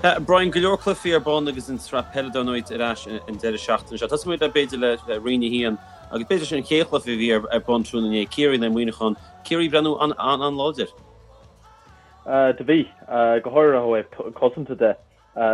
Brian, go leor cluichí ar bun agus an tsraith peile dar ndóigh ar ais an deireadh seachtaine seo. Tosóidh muid le b'fhéidir le Roinn 1 agus b'fhéidir sin an chéad chluiche a bhí ar bun tráthnóna inné, Ciarraí in aghaidh Muineachán. Ciarraí ag breathnú an-an-láidir. Do bhí, go háirithe ó thaobh cosanta de.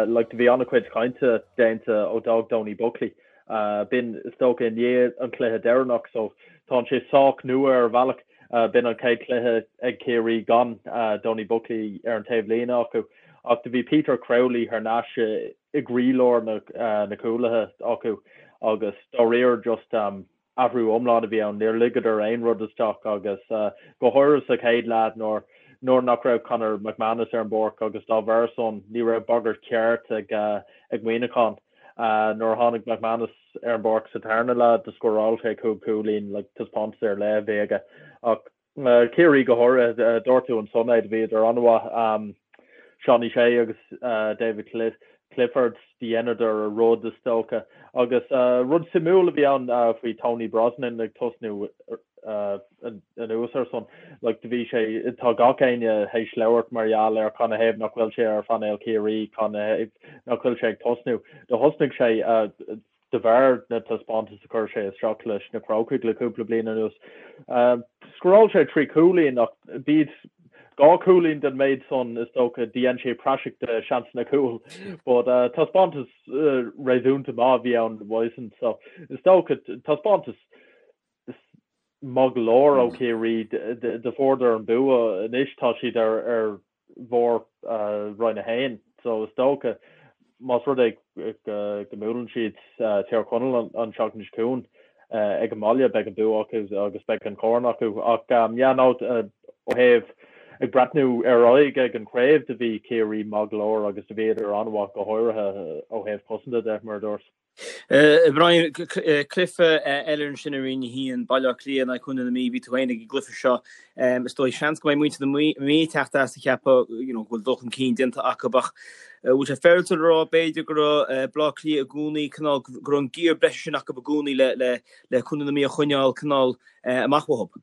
Like, do bhí an-chuid cainte déanta ó d'fhág Donie Buckley. B'in, is dócha, i ndiaidh an chluiche deireanach so tánn sé sách nua ar bhealach. B'in an chéad chluiche ag Ciarraí gan Donie Buckley ar an taobh líne acu. Ach do bhí Peter Crowley thar n-ais i gcroílár na cúlaithe acu agus dáiríre just athrú iomlán a bhí ann. Níor ligeadar aon rud isteach agus go háirithe sa chéad leath nuair nuair nach raibh Conor McManus ar an bpáirc agus dá bharr san ní raibh bagairt cheart ag ag Muineachán. Nuair a tháinig McManus ar an bpáirc sa tarna leath do scóráil sé 5 chúilín, like taispeántas ar leith a bhí aige. Ach Ciarraí go háirithe, dúirt tú ansan é, do bhíodar an-mhaith. Seánie Shea agus David Clifford, do dheineadar a rud is dócha. Agus rud suimiúil a bhí ann faoi Tony Brosnan ag tosnú anuas air san, like do bhí sé, tá gach éinne théis labhairt mar gheall ar canathaobh nach bhfuil sé ar phainéal Chiarraí, canathaobh nach bhfuil sé ag tosnú. Do thosnaigh sé. de bharr na taispeántas a chuir sé isteach leis na Crócaigh le cúpla bliain anuas. Scóráil sé 3 chúilín ach b'iad 2 chúilín den méid san is dócha dhein sé praiseach de seansanna cúil. But taispeántas réasúnta maith a bhí ann uaidhsean so is dócha taispeántas maith go leor ó Chiarraí do fuaireadar an bua anois tá siad ar bharr Roinn 1 so is dócha más rud é go mbuaileann siad Tír Chonaill an tseachtain seo chugainn ag an mbaile beidh an bua acu agus beidh an corn acu ach yeah no ó thaobh ag breathnú ar aghaidh ag an chraobh do bhí Ciarraí maith go leor agus do bhíodar an-mhaith go háirithe ó thaobh cosanta de mar a dúirt. Brian, cluiche eile ansin i Roinn 1, Baile Átha Cliath in aghaidh Chontae na Mí, bhí tú féin ag an gcluiche seo. Is dóigh, seans go mbeidh muintir na Mí ag teacht as ag ceapadh you know, go bhfuil dul chun cinn déanta acu ach bhfuil sé féaráilte a rá b'fhéidir go raibh Baile Átha Cliath i gcónaí cineál go raibh an giar breise sin acu i gcónaí le, le, le Contae na Mí a choinneáil cineál amach uathu?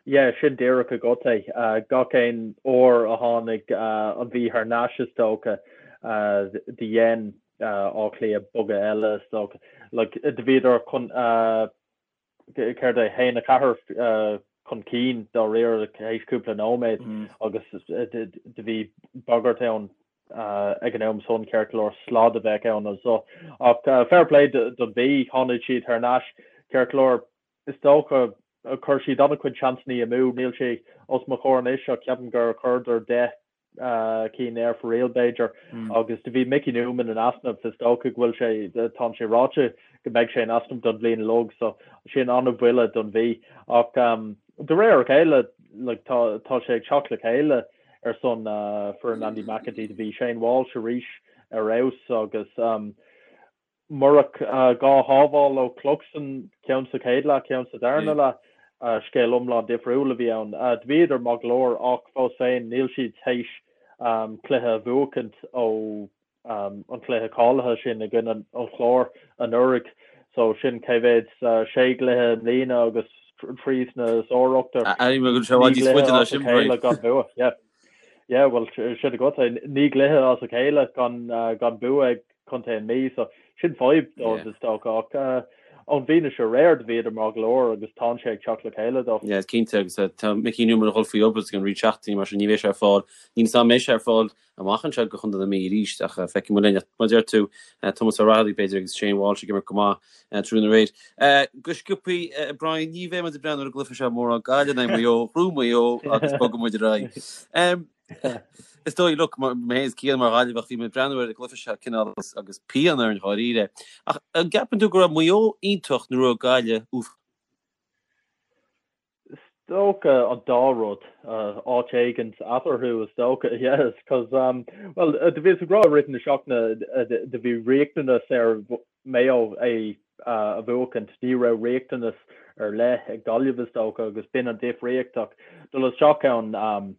Yeah, sin díreach agat é. Gach aon uair a tháinig an Mhí thar n-ais is dócha, do dhein Áth Cliath bogadh eile is dócha. Like, do bhíodar chun, céard é, 1, 4 chun cinn dáiríre théis cúpla nóiméad agus do bhí bagairt ann ag an am san ceart go leor slad a bheadh ann anso. Ach fair play don Mhí, tháinig siad thar n-ais ceart go leor. Is dócha, chuir siad an-chuid seansannaí amú, níl sé os mo chomhair anois ach ceapaim gur chuireadar 10 cinn ar fóraoil b'fhéidir agus do bhí Mickey Newman in easnamh, is dócha go bhfuil sé, tánn sé ráite go mbeidh sé in easnamh don bhliain uilig so sin an-bhuille don Mhí ach de réir a chéile like tá tá sé ag teacht le chéile ar son foireann Andy McEntee, do bhí Shane Walsh arís ar fheabhas agus Murach 2 shábháil ó Cluxton, ceann sa chéad leath, ceann sa darna leath, scéal iomlán difriúil a bhí ann. Do bhíodar maith go leor ach fós féin níl siad théis cluiche a bhuachaint ó an cluiche cáilithe sin i gcoinne an Chláir anuraidh. So sin cé mhéad, sé gcluiche i mbliana agus 3 sna sár-ochtar. 9 gcluiche as a chéile gan bua. Yeah. Yeah, bhuel sin agat é. 9 gcluiche as a chéile gan bua ag Contae na Mí, so sin fadhb dóibh is dócha ach ón bhfianaise aréir do bhíodar maith go leor agus tánn sé ag teacht le chéile dóibh. Yeah, cinnte agus tá Mickey Newman ag dul faoi obair ag an roinnt seachtainí mar sin ní bheidh sé ar fáil. Níl 'fhios a'm an mbeidh sé ar fáil amach anseo do Chontae na Mí arís ach feicfidh muid linn. Ach mar a deir tú, Tomás Ó Raghallaigh b'fhéidir agus Shane Walsh ag imirt go maith tráthnóna aréir. Go sciobthaí, Brian, ní bheidh muid ag breathnú ar an gcluiche seo mórán Gaillimh in aghaidh Maigh Eo, ghnóthaigh Maigh Eo agus bogfaidh muid ar aghaidh. Is dóigh, look, mé féin is Cian mar Ghaillimheach, bhí mé ag breathnú ar an gcluiche seo cineál agus pian orainn dháiríre. Ach an gceapann tú go raibh Maigh Eo iontach nó raibh Gaillimh uafásach? Is dócha an dá rud, áit éigint eatarthu is dócha, yes, cos, well, do bhíos ag rá i rith na seachtaine, do bhí riachtanas ar Maigh Eo é a bhuachaint, ní raibh riachtanas ar leith ag Gaillimh is dócha agus b'in an difríocht ach dul isteach ann.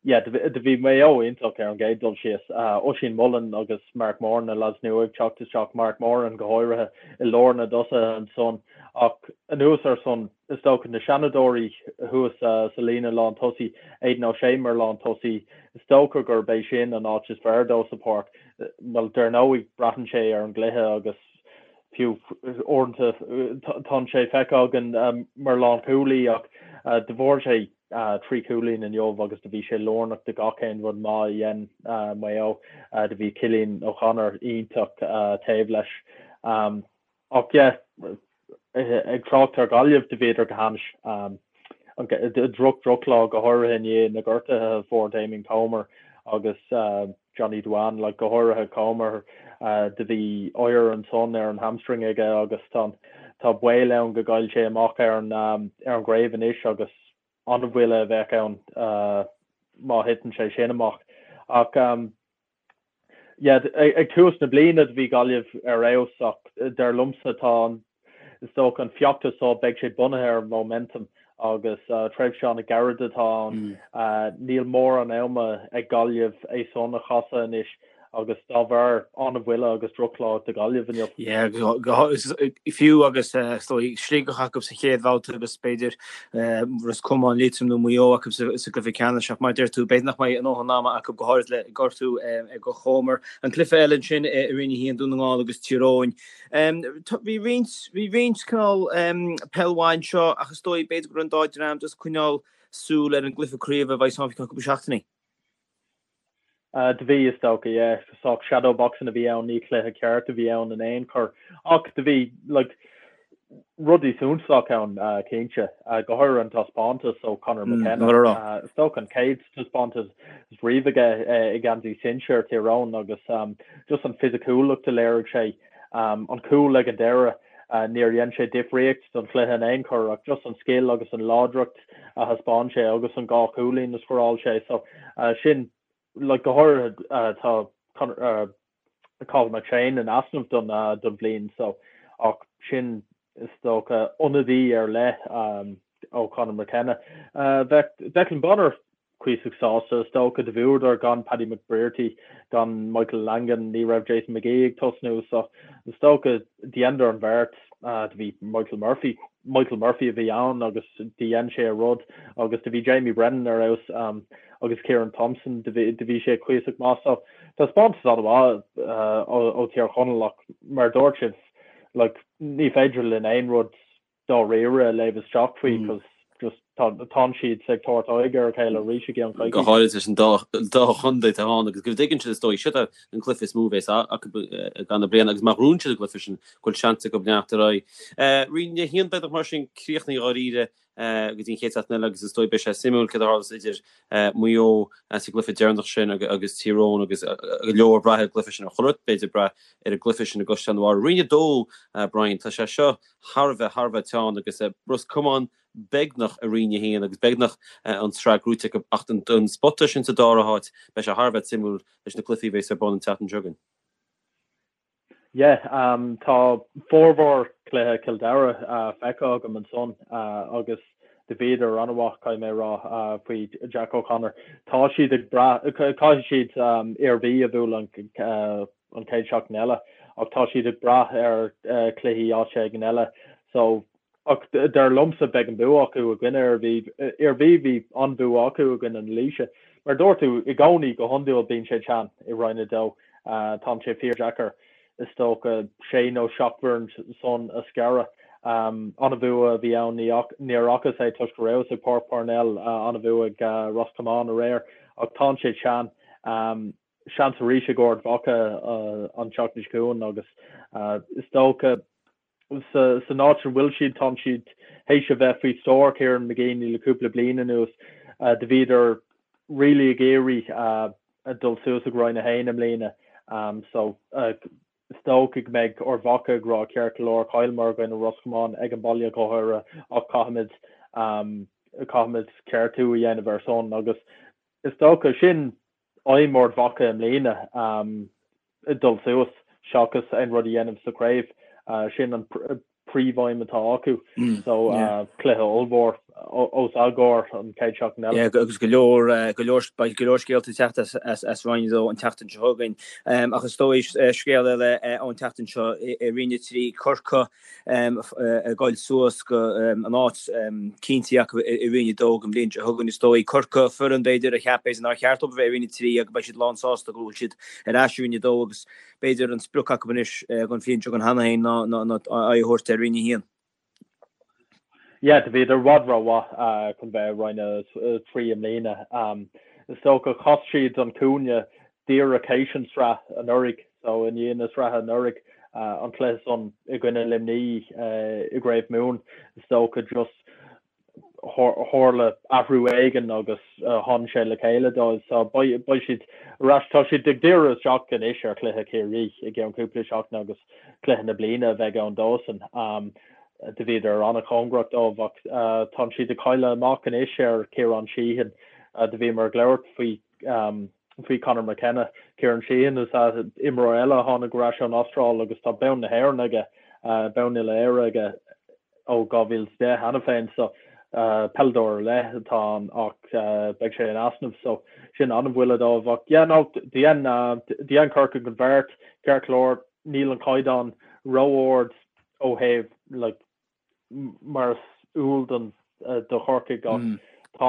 Yeah, do bhí Maigh Eo iontach ar an gcéad dul síos. Oisín Mullin agus Mark Moran, na lads nua ag teacht isteach, Mark Moran go háirithe i lár na dtosaithe ansan. Ach anuas ar san, is dócha na seanadóirí thuas sa líne lán tosaí, Aidan O'Shea mar lán tosaí, is dócha gurb é sin an áit is fearr dó sa pháirc. Bhuel, dar ndóigh, braitheann sé ar an gcluiche agus fiú uaireanta tá sé feicthe againn mar lánchúlaí ach do fuair sé 3 chúilín inniu agus do bhí sé lárnach do gach aon rud maith a dhein Maigh Eo. Do bhí Cillian O'Connor iontach taobh leis. Ach yeah, ag trácht ar Ghaillimh, do bhíodar go hainnis. Droch drochlá go háirithe i ndiaidh na gortuithe a fuair Damien Comer agus Johnny Duane, like go háirithe Comer, do bhí oighear ansan ar an hamstring aige agus tá tá baol ann go gcaillfidh sé amach ar an ar an gcraobh anois agus an-bhuille a bheadh ann má thiteann sé sin amach. Ach yeah, ag tús na bliana do bhí Gaillimh ar fheabhas ach dar liomsa tá an Is dócha an feachtas seo, beidh sé bunaithe ar mhóimeantam agus tréimhse an-ghairid atá ann. Níl mórán ama ag Gaillimh é san a chasadh anois agus dá bharr an-bhuille agus drochlá do Ghaillimh inniu. Yeah, fiú agus is dóigh Sligeach acu sa chéad bhabhta agus b'fhéidir Ros Comáin, Liatroim nó Maigh Eo acu sa gcluiche ceannais ach mar a deir tú, b'fhéidir nach mbeidh a ndóthain ama acu go háirid le gortú ag Comer. An cluiche eile ansin i Roinn 1, Dún na nGall agus Tír Eoghain. Bhí roinnt, bhí roinnt cineál peil mhaith anseo ach is dóigh b'fhéidir go raibh an dá dream just ag coinneáil súil ar an gcluiche craoibhe a bheidh ann faoi cheann cúpla seachtainí. Do bhí, is dócha, yeah. Sách shadow boxing a bhí ann, ní cluiche ceart a bhí ann in aon chor. Ach do bhí, like, rudaí suntasach ann, cinnte, go háirithe an taispeántas ó Conor McKenna. Is dócha an chéad taispeántas riamh aige i ngeansaí sinsear Thír Eoghain agus just an fisiciúlacht a léirigh sé, an cúl ag an deireadh, níor dhein sé difríocht don chluiche in aon chor ach just an scil agus an láidreacht a thaispeáin sé agus an dhá chúilín a scóráil sé. So sin, like, go háirithe tá Cathal McShane in easnamh don don bhliain so ach sin is dócha ionadaí ar leith ó Conor McKenna. Bheadh Declan Bonner cuíosach sásta is dócha do bhuadar gan Paddy McBrearty, gan Michael Langan, ní raibh Jason McGee ag tosnú so is dócha dheineadar an bheart. Do bhí Michael Murphy, Michael Murphy a bhí ann agus do dhein sé a rud agus do bhí Jamie Brennan ar fheabhas agus Ciarán Thompson do bhí sé cuíosach maith so Taispeántas an-mhaith ó Thír Chonaill ach mar a dúirt sibh, like, ní féidir linn aon rud dáiríre a léamh isteach faoi cos just tá tánn siad ag tabhairt aghaidh ar a chéile arís i gceann coicíse. Go háirid leis an dá dá chontae atá ann agus go dtuigeann siad is dóigh siod an cluiche is mó a bheas acu i gcaitheamh na bliana agus má ghnóthaíonn siad an cluiche sin go bhfuil seans acu leanacht ar aghaidh. Roinn 1 beagnach mar sin críochnaithe dháiríre go dtí an chéad seachtain eile agus is dóigh beidh sé suimiúil céard a tharlós idir Maigh Eo sa gcluiche deireanach sin agus Tír Eoghain agus go leor ag brath ar an gcluiche sin ar chuile rud b'fhéidir ag brath ar an gcluiche sin i gCaisleán an Bharraigh. Roinn 2, Brian, tá sé seo thar a bheith, thar a bheith teann agus Ros Comáin beagnach i Roinn 1 agus beagnach an tsraith gnóite acu ach don spota sin sa dara háit beidh sé thar a bheith suimiúil leis na cluichí a bheas ar bun an tseachtain seo chugainn. Yeah, tá formhór cluiche Chill Dara feicthe agam ansan agus do bhíodar an-mhaith, caithfidh mé a rá, faoi Jack O'Connor. Tá siad ag brath, caithfidh siad Iarmhí a bhualadh an chéad seachtain eile ach tá siad ag brath ar chluichí áit éigin eile. So Ach dar liomsa beidh an bua acu i gcoinne Iarmhí. Iarmhí, bhí an-bhua acu i gcoinne na Laoise. Mar a dúirt tú, i gcónaí, go hiondúil bíonn sé teann i Roinn 2. Tá sé fíordheacair, is dócha, sé nó seacht bhfoireann san a scaradh. An-bhua a bhí ann, níor fhacas é toisc go rabhas ag Páirc Parnell, an-bhua ag Ros Comáin aréir. Ach tá sé teann. Seans arís ag Ard Mhacha an tseachtain seo chugainn agus is dócha, San áit a bhfuil siad, tá siad théis a bheith faoi stiúir Kieran McGeeney le cúpla bliain anuas. Do bhíodar really ag iarraidh dul suas ag Roinn 1 i mbliana. So is dócha go mbeidh Ard Mhacha ag rá ceart go leor, chailleamar i gcoinne Ros Comáin ag an baile go háirithe ach caithfimid caithfimid ceartú a dhéanamh ar son agus is dócha sin aidhm Ard Mhacha i mbliana dul suas seachas aon rud a dhéanamh sa chraobh. Sin an príomhaidhm atá acu. So cluiche ollmhór. os ár gcomhair an chéad seachtain eile. Yeah, agus go leor, go leor, beidh go leor scéalta ag teacht as, as Roinn 2 an tseachtain seo chugainn. Ach is dóigh scéal eile ón tseachtain seo i Roinn 3, Corcaigh ag goil suas go an áit cinnte acu i Roinn 2 don bhliain seo chugainn. Is dóigh Corcaigh, foireann b'fhéidir a cheap b'fhéidir nár cheart dóibh a bheith i Roinn 3 agus beidh siad lán sásta go bhfuil siad ar ais i Roinn 2 agus b'fhéidir an sprioc acu anois don bhliain seo chugainn cheana féin ná aghaidh a thabhairt ar Roinn 1. Yeah, do bhíodar i bhfad rómhaith chun bheith i Roinn 3 i mbliana. Is dócha chas siad an cúinne díreach théis an sraith anuraidh, so i ndiaidh na sraithe anuraidh, an cluiche san i gcoinne Luimnigh i gCraobh Mumhan, is dócha just tharla athrú éigin agus tháinig sé le chéile dóibh. So beidh siad ar ais, tá siad ag díriú isteach anois ar chluiche Chiarraí i gceann cúpla seachtain agus cluiche na bliana a bheidh ann dósan. Do bhíodar an-chóngarach dóibh ach tá siad ag cailleadh amach anois ar Ciarán Sheehan. Do bhíomar ag labhairt faoi faoi Conor McKenna. Ciarán Sheehan is ea imreoir eile a tháinig ar ais ón Astráil agus tá bonn na hÉireann aige, bonn uile-Éire aige ó 2010 cheana féin so peileadóir ar leith atá ann ach beidh sé in easnamh so sin an-bhuille dóibh ach yeah no dhein dhein Corcaigh an bheart ceart go leor níl an caighdeán ró-ard ó thaobh like mar is eol don do Chorcaigh ach tá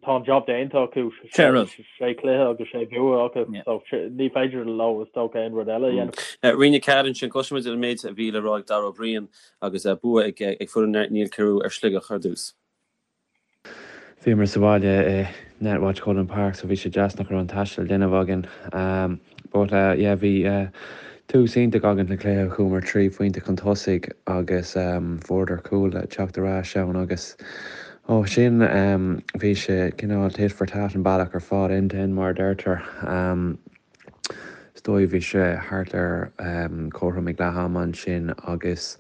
tá an job déanta acu sé chluiche agus sé bhua acu so ní féidir leo is dócha aon rud eile a dhéanamh. Roinn 4 ansin, cloisfimid an méid a bhí le rá ag Dara Ó Briain agus bua ag foireann Niall Carew ar Shligeach ar dtús. Bhíomar sa bhaile i Netwatch Cullen Park so bhí sé deas nach raibh an taisteal le déanamh againn. But yeah bhí tús iontach againn sa chluiche, chuamar 3 phointe chun tosaigh agus fuaireadar cúl le teacht ar ais ann agus ó sin bhí sé cineál tit for tat an bealach ar fad end to end mar a deirtear. Is dóigh bhí sé thart ar cothrom ag leath ama ansin agus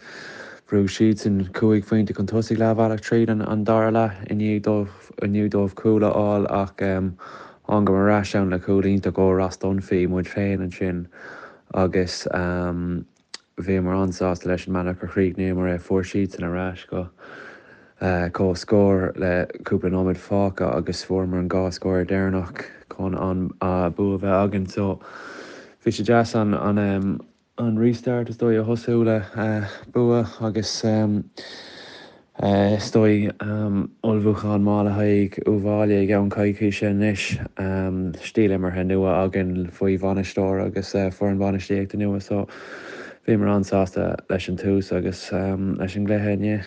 bhrúigh siadsan cúig phointe chun tosaigh leathbhealach tríd an dara leath i ndiaidh dóibh i ndiaidh dóibh cúl a fháil ach thángamar ar ais ann le cúl iontach ó Ross Dunphy muid féin ansin agus Bhíomar an-sásta leis an mbealach a chríochnaíomar é. Fuair siadsan ar ais go comhscór le cúpla nóiméad fágtha agus fuaireamar an dhá scór deireanach chun an bua a bheith againn. So bhí sé deas an an restart is dóigh a thosú le bua agus Is dóigh, ullmhúchán maith le haghaidh Uíbh Fhailí i gceann coicíse anois. Stíl imeartha nua againn faoi bhainisteoir agus foireann bainistíochta nua so bhíomar an-sásta leis an tús agus leis an gcluiche inné.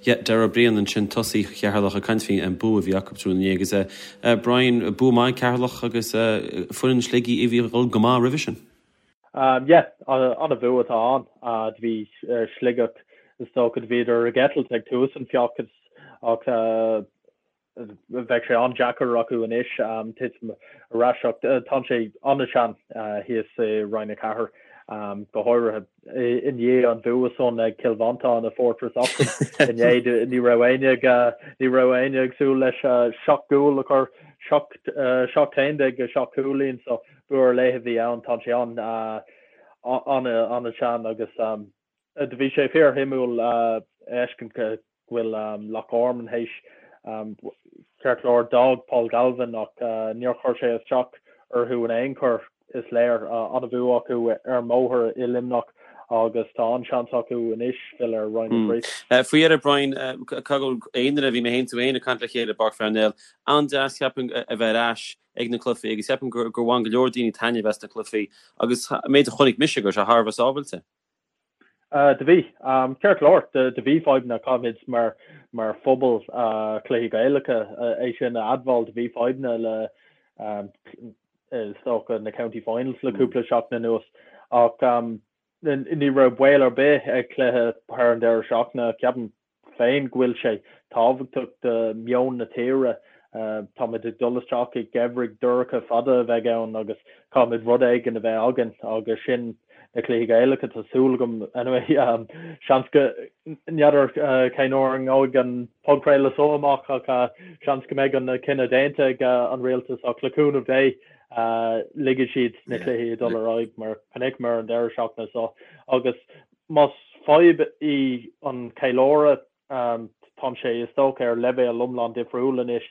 Yeah, Dara Ó Briain ansin, tosaí Cheatharlach ag caint faoin bua a bhí acu tráthnóna inné agus Brian, bua maith ag Ceatharlach agus foireann Shligigh a bhí ag dul go maith roimhe sin. Yeah, an-bhua atá ann. Do bhí Sligeach, is dócha, do bhíodar ag eitilt ag tús an feachtais ach bheadh sé an-deacair acu anois titim ar ais ach tá sé an-teann thíos i Roinn 4, go háirithe i ndiaidh an bhua san ag Cill Mhantáin i Fortress Oxen inné. Ní raibh éinne ag ní raibh éinne ag súil leis 7 gcúl a chur, 7 7 11 7 cúilín so Bua ar leith a bhí ann, tá sé an-an-an-teann agus do bhí sé fíorshuimiúil a fheiscint go bhfuil Loch Garman théis ceart go leor d'fhág Paul Galvin ach níor chuir sé isteach orthu in aon chor, is léir. An-bhua acu ar an mbóthar i Luimneach agus tá an-seans acu anois filleadh ar Roinn 3. Faoi dheireadh, Brian, caithfidh go bhfuil aon duine, bhí mé féin tú féin ag caint le chéile i bPáirc Pharnell, an-deas ceapaim a bheith ar ais ag na cluichí agus ceapaim gur bhain go leor daoine taitneamh as na cluichí agus an méid a chonaic mise go raibh sé thar a bheith sábhailte. Do bhí. Ceart go leor, do bhí fadhbanna, caithfimid mar mar phobal cluichí Gaelacha é sin a admháil, do bhí fadhbanna le is dócha na County Finals le cúpla seachtain anuas ach ní raibh baol ar bith ag cluiche thar an deireadh seachtaine, ceapaim. féin go bhfuil sé tábhachtach do mheon na tíre. Táimid ag dul isteach i ngeimhreadh dorcha fada a bheidh ann agus caithfimid rud éigin a bheith againn agus sin na cluichí Gaelacha, tá súil agam anyway. Seans go, n'fheadar cén uair a ngabhfaidh an podchraoladh seo amach ach seans go mbeidh an cinneadh déanta ag an rialtas ach le cúnamh Dé ligfidh siad na cluichí ag dul ar aghaidh mar chonaiceamar an deireadh seachtaine seo agus Más fadhb í an ceiliúradh, Tá sé is dócha ar leibhéal iomlán difriúil anois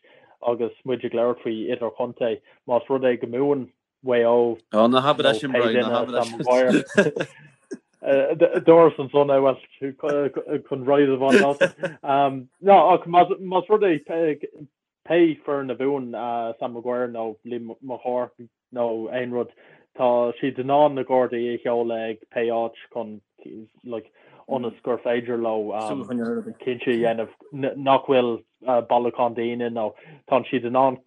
agus muid ag labhairt faoi idirchontae. Más rud é go mbuann Mhaigh Eo Ó, ná habair é sin, Brian, ná habair é sin. Dúras ansan é, bhuel, chun ride a bhaint as. No, ach más rud é pé foireann a bhuann Sam Maguire nó Liam Mac Cárthaigh nó aon rud, tá siad in ann na Gardaí a sheoladh ag pé áit chun, like, ionas gur féidir leo cinnte a dhéanamh nach bhfuil bailiúchán daoine nó tá siad in ann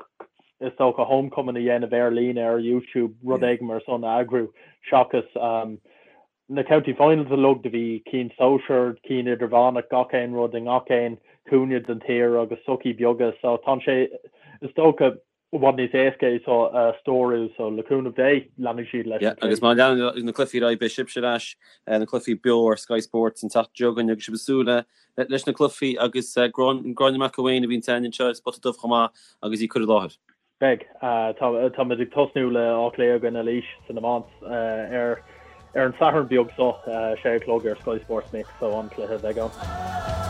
is dócha homecoming a dhéanamh ar líne ar YouTube, rud éigin mar san a eagrú seachas na county finals uilig, do bhí cinn sóisear, cinn idirmheánach, gach aon rud i ngach aon chúinne den tír agus sochaí beaga so tá sé is dócha i bhfad níos éasca é seo a stiúradh so le cúnamh Dé leanfaidh siad leis an agus má leanann na cluichí ar aghaidh beidh sibhse ar ais na cluichí beo ar Sky Sports an tseachtain seo chugainn agus sibh ag súil le leis na cluichí agus Gráinne McElwain a bhíonn againn anseo ar Spota Dubh chomh maith agus í ag cur i láthair. Beidh. Táimid ag tosnú le Áth Cliath i gcoinne Laois san iomáint ar ar an Satharn beag seo, 6 a chlog ar Sky Sports Mix, so an-chluiche a bheidh ann.